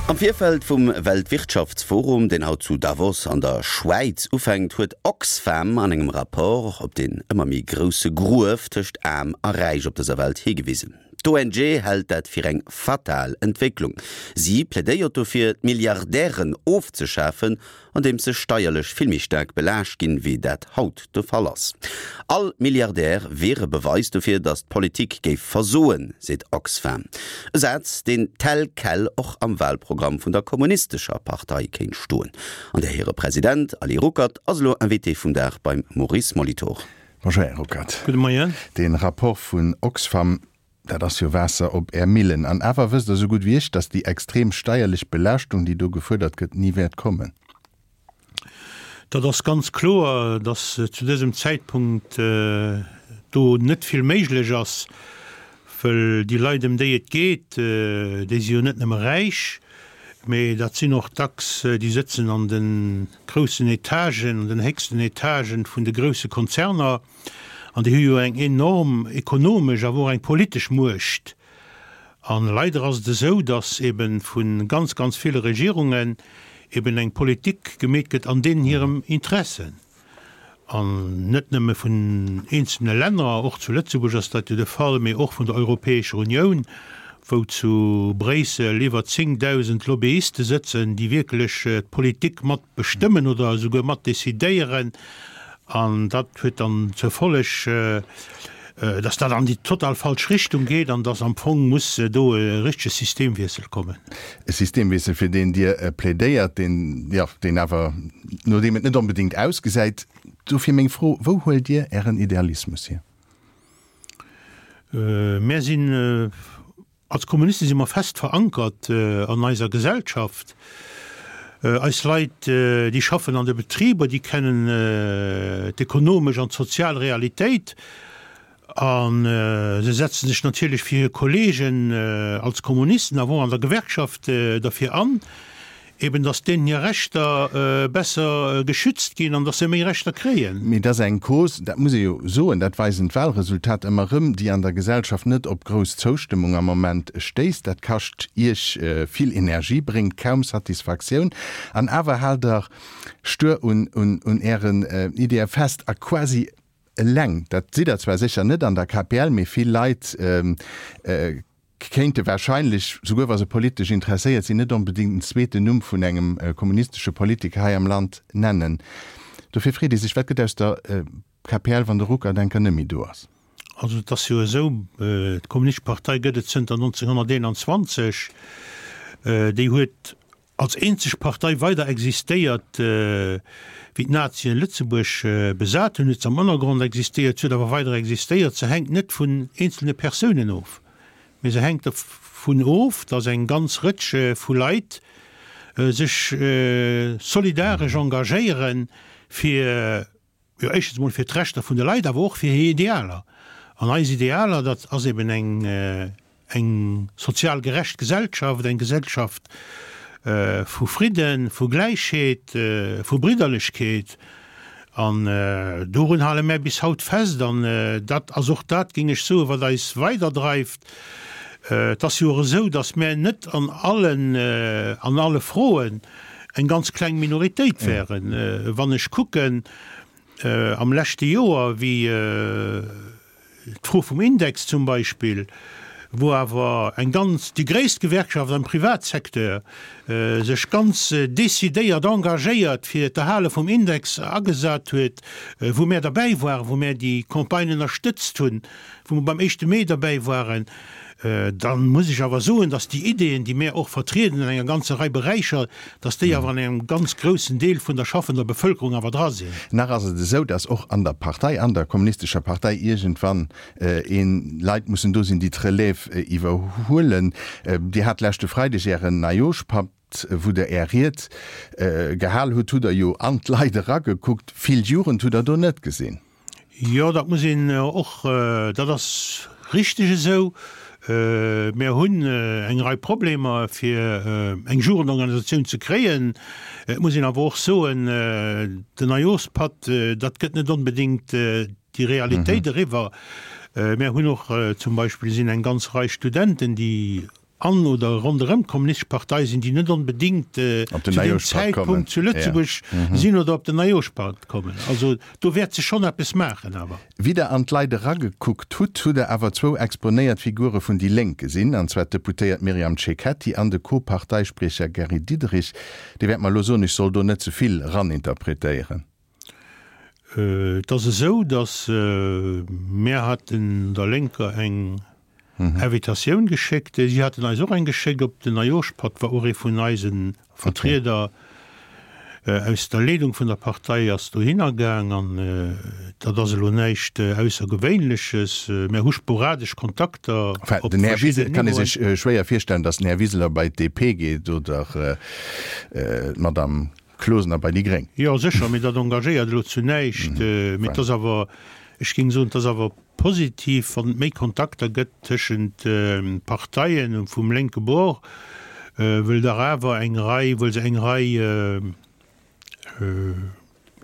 Am Virfeld vum Weltwirtschaftsforum, deen haut zu Davos an der Schwäiz ufänkt, huet Oxfam an engem Rapport op deen ëmmer méi grousse Gruef tëscht Aarm a Räich op dëser Welt higewisen. D'ONG hält dat fir eng fatal Entwécklung. Si plädéiert dofir, d'Milliardären ofzeschafen andeems se steierlech vill méi staark belaascht ginn, wéi dat haut de Fall ass. All Milliardär wier e Beweis dofir, datt d'Politik géif versoen, seet Oxfam. E Saz, deen tel quel och am Wahlprogramm vun der Kommunistescher Partei kéint stoen. An där hire President Ali Ruckert ass elo Invité vum Dag beim Maurice Molitor. Bonjour Här Ruckert. Gudde Moien. De Rapport vun Oxfam Dat ass jo Waasser op Är Millen. An awer wësst Der esou gutt wéi ech, datt déi extrem steierlech Belaaschtung, déi do gefuerdert gëtt, ni wäert kommen. Dat ass ganz kloer, datt zu dësem Zäitpunkt do net vill méiglech ass, wëll déi Leit, ëm déi et geet, déi si jo net nëmme räich, mee dat sinn och dacks, déi sëtzen an de groussen Etagen, an den héchsten Etagen vun de grousse Konzerner. An déi hu jo eng enorm ekonomesch, awer och eng politesch Muecht. A leider ass et esou, datt ebe vu ganz, ganz ville Regierungen eben eng Politik gemeet gëtt an deenen hirem Interessen. An net nëmme vun eenzelne Länner, och zu Lëtzebuerg ass dat jo de Fall, mee och vun der Europäescher Unioun, wou zu Bréissel iwwer 10.000 Lobbyiste sëtzen, déi wierklech d'Politik mat bestëmmen oder esouguer mat decidéieren. An dat huet dann zur Folleg, dass dat an déi total falsch Richtung geet an dass am Fong muss do e richtege Systemwiessel kommen. E Systemwiessel, fir deen Dir plädéiert, deen, jo, deen awer, no deem et net onbedéngt ausgesäit. Dofir meng Fro, Wou huelt Dir Ären Idealismus hier? Mär sinn Als Kommuniste si mer fest verankert an eiser Gesellschaft. Eis Leit, déi schaffen an de Betriber, déi kennen d'ekonomesch an d'sozial Realitéit a se setze sech natierlech fir hir Kollegen als Kommunisten, awer och an der Gewerkschaft derfir an, Eben, dass deenen hir Rechter besser geschützt ginn an dass se méi Rechter kréien. Mee et ass eng Cause, dat muss ee jo soen, dat weisen d'Wahlresultater ëmmer erëm, déi an der Gesellschaft net op grouss Zoustëmmung am Moment stéisst. Dat kascht Iech vill Energie, bréngt kaum Satisfaktioun. An awer haalt Der stuer un Ären Ideeë fest a quasi eleng, dat sidd Der zwar sécher net an der KPL, mee vill Leit kéinte wahrscheinlech, souguer wa se politesch interesséiert sinn, net onbedéngt den zweeten Numm vun engem kommunistesche Politiker hei am Land nennen. Dofir freet ee sech, Wat gëtt aus der KPL, wann de Ruckert enker net méi do ass? Also et ass jo esou, d'Kommunistesch Partei gëtt et zënter 1921. Déi huet als eenzeg Partei weider existéiert, wéi d'Nazien Lëtzebuerg besat hunn, huet se am Ënnergrond existéiert, se huet awer weider existéiert. Se hänkt net vun eenzelne Persounen of, mee se hänkt dervun of, datt eng ganz Rëtsch vu Leit sech solidaresch engagéieren, fir Jo, éischtens emol fir d'Rechter vun de Leit, awer och fir hir Idealer. An eis Idealer, dat ass eben eng, eng sozial gerecht Gesellschaft, eng Gesellschaft vu Fridden, vu Gläichheet, vu Bridderlechkeet. An dorun hale mär bis haut fest. An dat ass och dat, géing ech soen, wat eis weiderdreift. Et ass jo och esou, datt mär net an allen, an alle Froen eng ganz kleng Minoritéit wären. Wann ech kucken am leschte Joer, wéi d'Fro vum Index zum Beispill, wou awer eng ganz, déi gréisst Gewerkschaft am Privatsecteur sech ganz decidéiert engagéiert fir d'Erhale vum Index agesat huet, wou mär derbäi waren, wou mär déi Campagne ënnerstëtzt hunn, wou mer beim éischte Mee derbäi waren, dann muss ech awer soen, dass déi Ideen, déi mär och vertrieden an enger ganzer Rei Beräicher, dass déi awer an engem ganz groussen Deel vun der schaffender Bevölkerung awer dra sinn. Nach ass et esou, dass och an der Partei, an der Kommunistescher Partei iergendwann een Leit mussen do sinn, déi d'Relève iwwerhuelen. Dir hat leschte Freideg Ären Neijooschpapp, wou Der Är Ried gehal hutt, hutt Der jo an d'Leit eragekuckt. Vill Jugend hutt Der do net gesinn. Jo, dat muss een och, dat ass richteg esou. Mir hunn eng Rei Problemer, fir eng Jugendorganisatioun ze kréien. Et muss een awer och soen, den Neijooschpatt, dat gëtt net onbedéngt déi Realitéit eriwwer. Mir hunn och zum Beispill sinn eng ganz Rei Studenten, déi. An oder ronderëm d'Kommunistesch Partei sinn, déi net onbedéngt zu deem Zäitpunkt zu Lëtzebuerg sinn oder op den Neijooschpatt kommen. Also do wäert sech schonn eppes maachen awer. Wéi Der an d'Leit eragekuckt hutt, hutt Der awer zwou exponéiert Figure vun déi Lénk gesinn, an zwar d'Deputéiert Myriam Cecchetti an de Co-Parteispriecher Gary Diderich. Dir wäert mer elo soen, ech soll do net ze vill eraninterpretéieren. Et ass esou, datt mär haten der Lénker eng Invitatioun geschéckt. Si haten eis och eng geschéckt. Op den Neijooschpatt war och ee vun eise Vertrieder aus der Leedung vun der Partei ass dohinner gaang. An dat ass elo näischt Aussergewéinleches. Mär hu sporadesch Kontakter op Den Här Wiseler, et kann ee sech schwéier virstellen, datt den Här Wiseler bei d'DP geet oder d'Madame Closener bei déi Gréng. Jo, sécher, mee dat engagéiert elo zu näischt. Mee et ass awer, ech géing soen, et ass awer positiv, wann et méi Kontakter gëtt tëschent Parteien vum lénke Bord, wëll dach awer eng Rei, wëll se eng Rei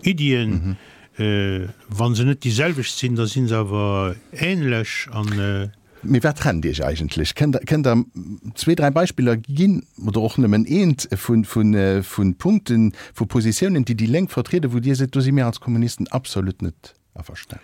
Iddien, wa se net déi selwecht sinn, da si se awer ähnlech an. Mee wat trennt Iech eigentlech? Kënnt Der, kënnt Der zwee, dräi Beispiller ginn, oder och nëmmen eent, vu, vu, vu Punkten, vu Positiounen, déi déi Lénk vertrieden, wou Dir seet, do si mir als Kommunisten absolut net averstanen?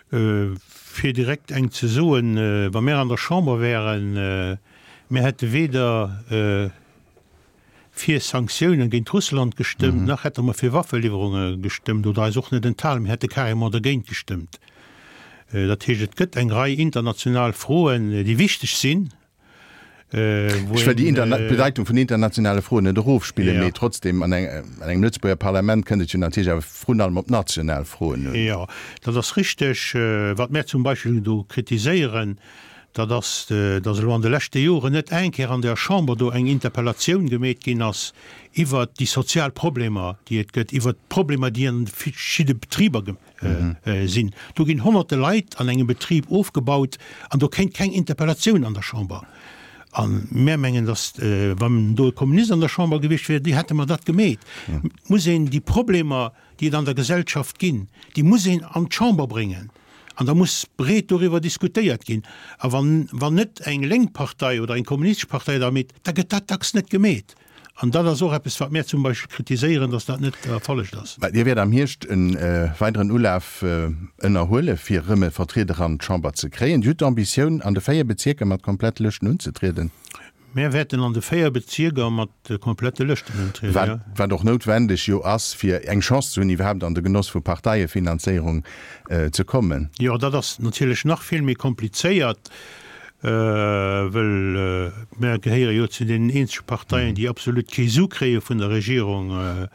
Fir direkt eng ze soen, Wa mir an der Chamber wären, mir hätte weder fir Sanktiounen géint Russland gestëmmt, nach hätte mer fir Waffeliwwerunge gestëmmt oder eis och net enthalen, mir hätte carrément dergéint gestëmmt. Dat heescht, et gëtt eng Rei international Froen, déi wichteg sinn, wou Ech wëll déi een. D'Bedeitung vun internationale Froen net erofspillen, mee trotzdem, an engem Lëtzebuerger Parlament kënnt et jo natierlech awer vrun allem op national Froen un. Jo, dat ass richteg. Wat mär zum Beispill do kritiséieren, dat ass, datt elo an de leschte Joren net eng Kéier an der Chamber do eng Interpellatioun gemeet ginn ass iwwert déi sozial Problemer, déi et gëtt, iwwert d'Problemer, déi an de verschidde Betriber sinn. Do ginn honnerte Leit an engem Betrib ofgebaut an do kéint keng Interpellatioun an der Chamber. A mär mengen, datt, wann do e Kommunist an der Chamber gewiescht wier, déi hätte mer dat gemeet. Et muss een déi Problemer, déi et an der Gesellschaft ginn, déi muss een an d'Chamber bréngen an da muss breet doriwwer diskutéiert ginn. A wann, wann net eng lénk Partei oder eng kommunistesch Partei dat meet, da gëtt dat dacks net gemeet. An dat ass och eppes, wat mär zum Beispill kritiséieren, dass dat net erfollegt ass. Mä Dir wäert am Hierscht e weideren Ulaf ënnerhuele fir erëm e Vertrieder an d'Chamber ze kréien. Dir hutt d'Ambitioun, an de 4 Bezierker mat komplette Lëschten unzetrieden? Mär wäerten an de 4 Bezierker mat komplette Lëschten untrieden, jo. Wat och noutwendeg jo ass, fir eng Chance ze hunn, iwwerhaapt an de Genoss vu Parteiefinanzéierung ze kommen. Jo, dat ass natierlech nach vill méi komplizéiert. Well mär gehéiere jo zu deenen eenzege Parteien, déi absolut kee Su kréie vun der Regierung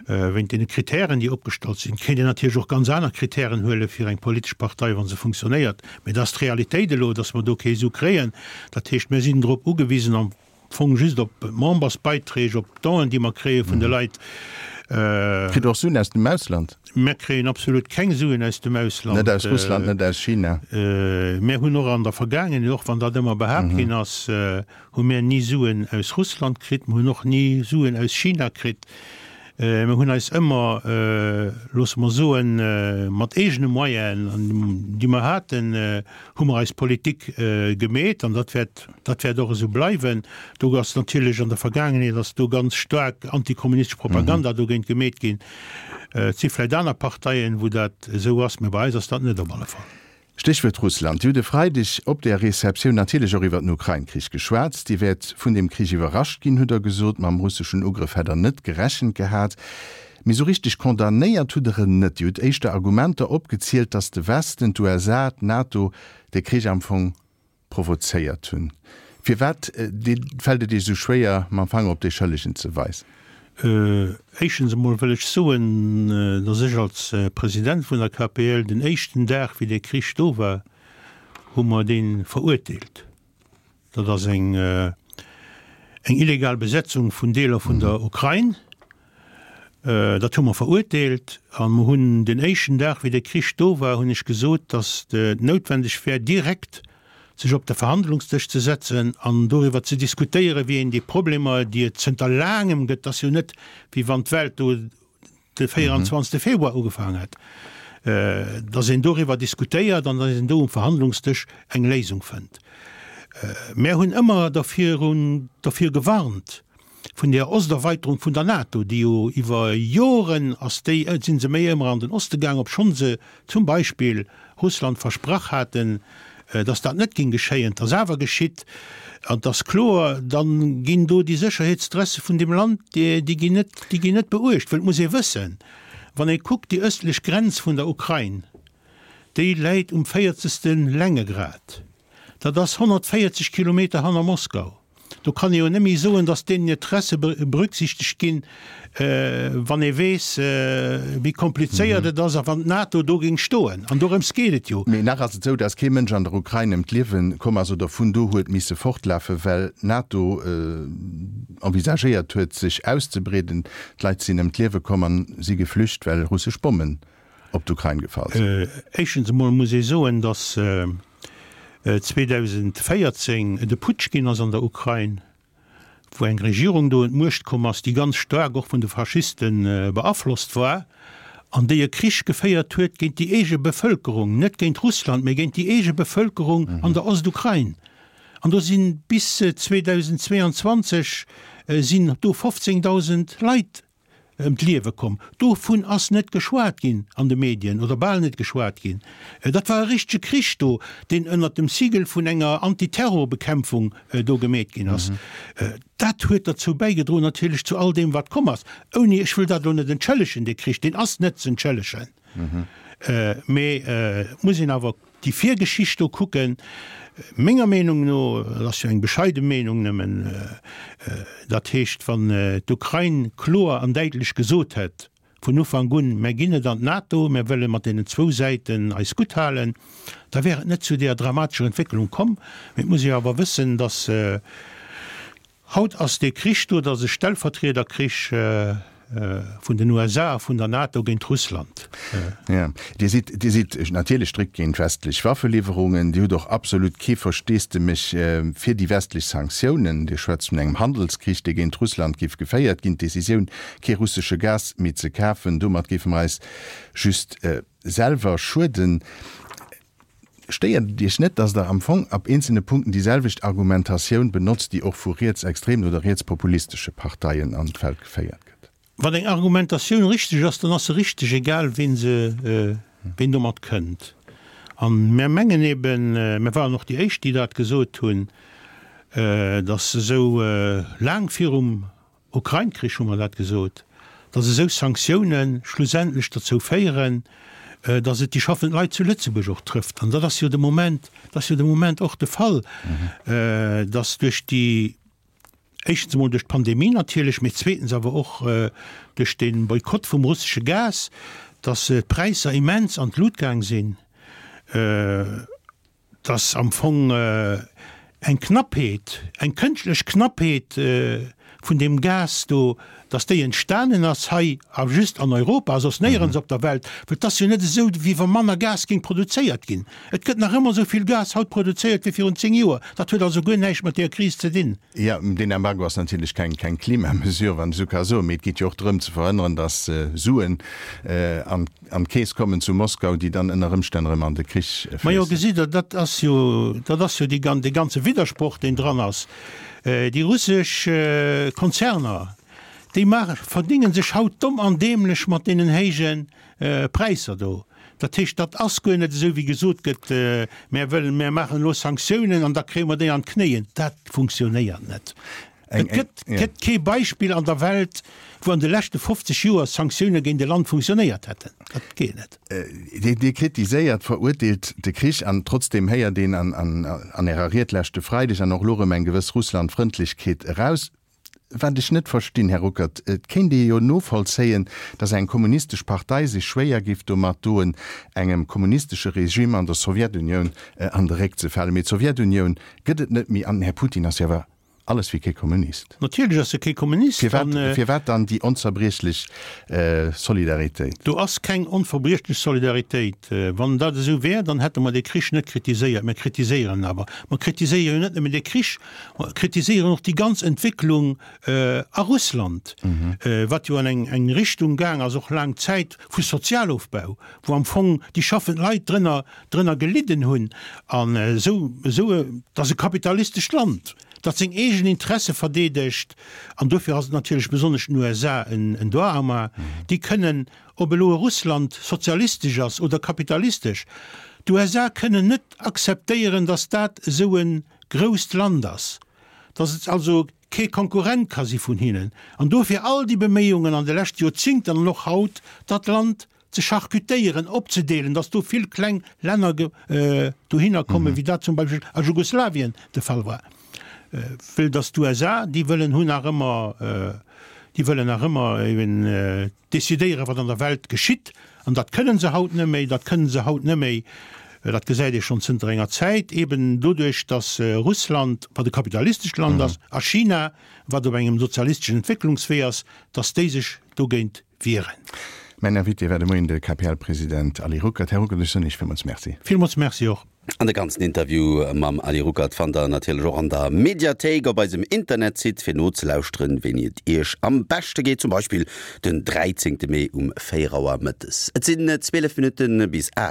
wéint deene Kritären, déi opgestallt sinn. Et kéint een natierlech och ganz aner Kritären huele fir eng politesch Partei, wa se funktionéiert. Mä dat ass d'Realitéit elo, datt mer do kee Su kréien. Dat heescht, mir sinn drop ugewisen, am Fong just op Membersbeiträg, op d'Donen, déi mer kréie vun de Leit. Kritt Der och Suen aus dem Ausland? Mär kréien absolut keng Suen aus dem Ausland. Net aus Russland, net aus China? Mär hunn och an der Vergaangenheet, och wann dat ëmmer behaapt ginn ass, hu mär ni Suen aus Russland kritt. Mer hunn och ni Suen aus China kritt. Mer hunn eis ëmmer, loosse mer soen, mat eegene Moyenen, déi mer haten, hu mer eis Politik gemeet an dat wäert, dat wäert och esou bleiwen. Do ass natierlech an der Vergaangenheet ass do ganz staark antikommunistesch Propaganda dogéint gemeet ginn. Et si vläicht aner Parteien, wou dat esou ass, mä bei eis ass dat net op alle Fall. Stéchwuert Russland. Dir hutt e Freideg op där Receptioun natierlech och iwwer den Ukrain-Krich geschwat. Dir wäert vun deem Krich iwwerrascht ginn, hutt Der gesot. Mam russeschen Ugrëff hätt Der net gerechent gehat. Mee sou richteg condamnéiert hutt Der en net. Dir hutt éischter Argumenter opgezielt, datt de Westen, d'USA, d'NATO de Krich am Fong provozéiert hunn. Firwat fält et Iech esou schwéier, mam Fanger op dee Schëllegen ze weisen? Éischtens emol wëll ech soen, datt ech als President vun der KPL den éischten Dag, wéi dee Krich do war, hu mer dee verurteelt. Dat ass eng eng illegal Besetzung vun Deeler vun der Ukrain. Dat hu mer verurteelt a mer hunn den éischten Dag, wéi de Krich do war, hunn ech gesot, datt et noutwendeg wär, direkt sech op de Verhandlungsdësch ze setzen an doriwwer ze diskutéieren, wéi een déi Problemer, déi et zënter laangem gëtt, ass jo net, wéi wann d'Welt do de 24 Februar ugefaangen hätt, datt een doriwwer diskutéiert an datt een do um Verhandlungsdësch eng Léisung fënnt. Mär hunn ëmmer dervirun, dervir gewarnt, vun där Osterweiterung vun der NATO, déi jo iwwer Joren ass déi, si se méi ëmmer an den Oste gaang, obschonn se zum Beispill Russland versprach haten, datt dat net géing geschéien. Et ass awer geschitt an et ass kloer, da ginn do déi Sécherheetstresse vun deem Land, déi ginn net, déi ginn net beuecht. Well et muss ee wëssen, wann ee kuckt, déi ëstlech Grenz vun der Ukrain, déi läit um véierzegste Längegrad. Dat ass 140 Kilometer hanner Moskau. Do kann ee jo net méi soen, datt deenen Interesse berücksichtegt ginn, wann ee weess, wéi komplizéiert et ass a wann d'NATO do géing stoen. An dorëms geet et jo. Mee nach ass et esou, datt kee Mënsch an der Ukrain ëm d'Liewe komm ass oder vun do huet misse fortlafen, well d'NATO envisagéiert huet, sech auszebreeden. D'Leit sinn ëm d'Liewe komm a si geflücht, well russesch Bommen op d'Ukrain gefall sinn. Éischtens emol muss ee soen, datt 2014 et e Putsch ginn ass an der Ukrain, wou eng Regierung do un d'Muecht komm ass, déi ganz staark och vun de Faschiste beaflosst war an déi e Krich geféiert huet géint déi eege Bevëlkerung, net géint Russland, mee géint déi eege Bevëlkerung an der Ostukrain. An do si bis 2022 sinn do 15.000 Leit ëm d'Liewe komm. Dovun ass net geschwat ginn an de Medien oder bal net geschwat ginn. Dat war e richtege Krich do, deen ënnert dem Sigel vun enger Antiterrorbekämpfung do gemeet ginn ass. Dat huet derzou bäigedroen natierlech zu all deem wat komm ass, ouni, ech wëll dat elo net entschëllegen, dee Krich, deen ass net z'entschëllegen, mee et muss een awer Déi Virgeschicht do kucken, menger Meenung no, dat ass jo eng bescheide Meenung nëmmen, dat heescht, wann d'Ukrain kloer an däitlech gesot hätt vun Ufank un, mär ginn net an d'NATO, mär wëlle mat deenen zwou Säiten eis gutt halen, da wär et net zu deeër dramatescher Entwécklung komm. Mee et muss ee jo awer wëssen, datt Haut ass dee Krich do, dat ass e Stellvertriederkrich vun den USA a vun der NATO géint Russland. Jo, Dir sidd, Dir sidd natierlech strikt géint westlech Waffeliwwerungen. Dir hutt och absolut kee Versteesdemech fir déi westlech Sanktiounen. Dir schwätzt vun engem Handelskrich, dee géint Russland géif geféiert ginn. D'Decisioun, kee russesche Gas méi ze kafen, domat géife mer eis just selwer schueden. Stéiert et Iech net, datt Der am Fong ab eenzelne Punkten déi selwecht Argumentatioun benotzt, déi och vu rietsextremen oder rietspopulistesche Parteien an d'Feld geféiert gëtt? Wann eng Argumentatioun richteg ass, dann ass se richteg, egal ween se, ween domat kënnt. A mär mengen eben, mär waren och déi éischt, déi dat gesot hunn, datt esou laang virum Ukrain-Krich hu mer dat gesot, datt esou Sanktioune schlussendlech derzou féieren, datt et déi schaffend Leit zu Lëtzebuerg och trëfft. An dat ass jo de Moment, dat ass jo de Moment och de Fall, datt duerch déi, éischtens emol duerch d'Pandemie natierlech, mee zweetens awer och duerch de Boykott vum russesche Gas, datt d'Präisser immens an d'Lut gaang sinn. Dass am Fong eng Knappheet, eng kënschtlech Knappheet vun deem Gas do, dass déi entstanen ass hei a just an Europa a soss néierens op der Welt, well et ass jo net esou, wéi wa manner Gas géing produzéiert ginn. Et gëtt nach ëmmer esou vill Gas haut produzéiert wéi virun 10 Joer. Dat huet also guer näischt mat deeër Kris ze dinn. Jo, deen Embargo ass natierlech keng keng Klimamesure, wann ech esou ka soen, mee et geet jo och drëm ze verhënneren, dass Suen an An d'Keess kommen zu Moskau, déi dann ënner Ëmstänn erëm an de Krich Majo, fléissen. gesitt Der, dat ass jo, dat ass jo déi gan, dee ganze Widdersproch, deen dran ass. Déi russesch Konzerner, déi maache, verdénge sech haut domm an dämlech mat deenen héije Präisser do. Dat heescht, dat ass guer net esou, wéi gesot gëtt, mär wëllen, mär maachen elo Sanktiounen an da kréie mer déi an d'Knéien. Dat funktionéiert net. Et gëtt gëtt kee Beispill an der Welt, wou an de leschte 50 Joer Sanktioune géint e Land funktionéiert hätten. Dat geet net. Dir kritiséiert, verurteelt de Krich an trotzdeem héiert een an an Ärer Ried leschte Freideg an och elo erëm eng gewëss Russlandfrëndlechkeet eraus. Wat ech net verstinn, Här Ruckert, et kéint ee jo novollzéien, datt eng kommunistesch Partei sech schwéier géif domat doen, engem kommunistesche Regime an der Sowjetunioun an de Réck ze falen. Mee d'Sowjetunioun gëtt et net méi an den Här Putin ass jo awer. Alles wéi kee Kommunist. Natierlech ass e kee Kommunist. Firwat, firwat dann déi onzerbriechlech Solidaritéit? Do ass keng onverbriechlech Solidaritéit. Wann dat esou wär, dann hätte mer dee Krich net kritiséiert. Mer kritiséieren en awer. Mer kritiséiere jo net nëmmen dee Krich, mer kritiséieren och déi ganz Entwécklung a Russland, wat jo an eng eng Richtung gaang ass, och laang Zäit, vu Sozialofbau, wou am Fong déi schaffend Leit drënner drënner gelidden hunn an esou esou et ass e kapitalistescht Land, dat seng eegen Interesse verdeedegt an dofir ass et natierlech besonnesch den USA en en Doigt-à-main. Déi kënnen, ob elo e Russland sozialistesch ass oder kapitalistesch, d'USA kënnen net akzeptéieren, datt dat esou e grousst Land ass, datt et also kee Konkurrent ka si vun hinnen an dofir all déi Beméiungen an de leschte Joerzingten an och haut, dat Land ze charcutéieren, opzedeelen, datt do vill kleng Länner dohinner kommen, wéi dat zum Beispill a Jugoslawien de Fall war. Wëll datt d'USA, déi wëllen hunn nach ëmmer, déi wëllen nach ëmmer eben decidéieren, wat an der Welt geschitt. An dat kënnen se haut net méi, dat kënnen se haut net méi, dat gesäit ee schonn zënter enger Zäit, eben doduerch, datt Russland, wat e kapitalistescht Land ass, a China, wat op engem sozialisteschen Entwécklungswee ass, datt déi sech dogéint wieren. Mäin Invité war de Moien de KPL-President Ali Ruckert. Här Ruckert, ech soen Iech villmools Merci. Villmools Merci och. An de ganzen Interview mam Ali Ruckert fannt der natierlech och an der Mediathéik op eisem Internetsite fir nozelauschteren, wéini et Iech am beschte geet, zum Beispill den 13 Mee um 4 Auer mëttes. Et sinn 12 Minutte bis 8.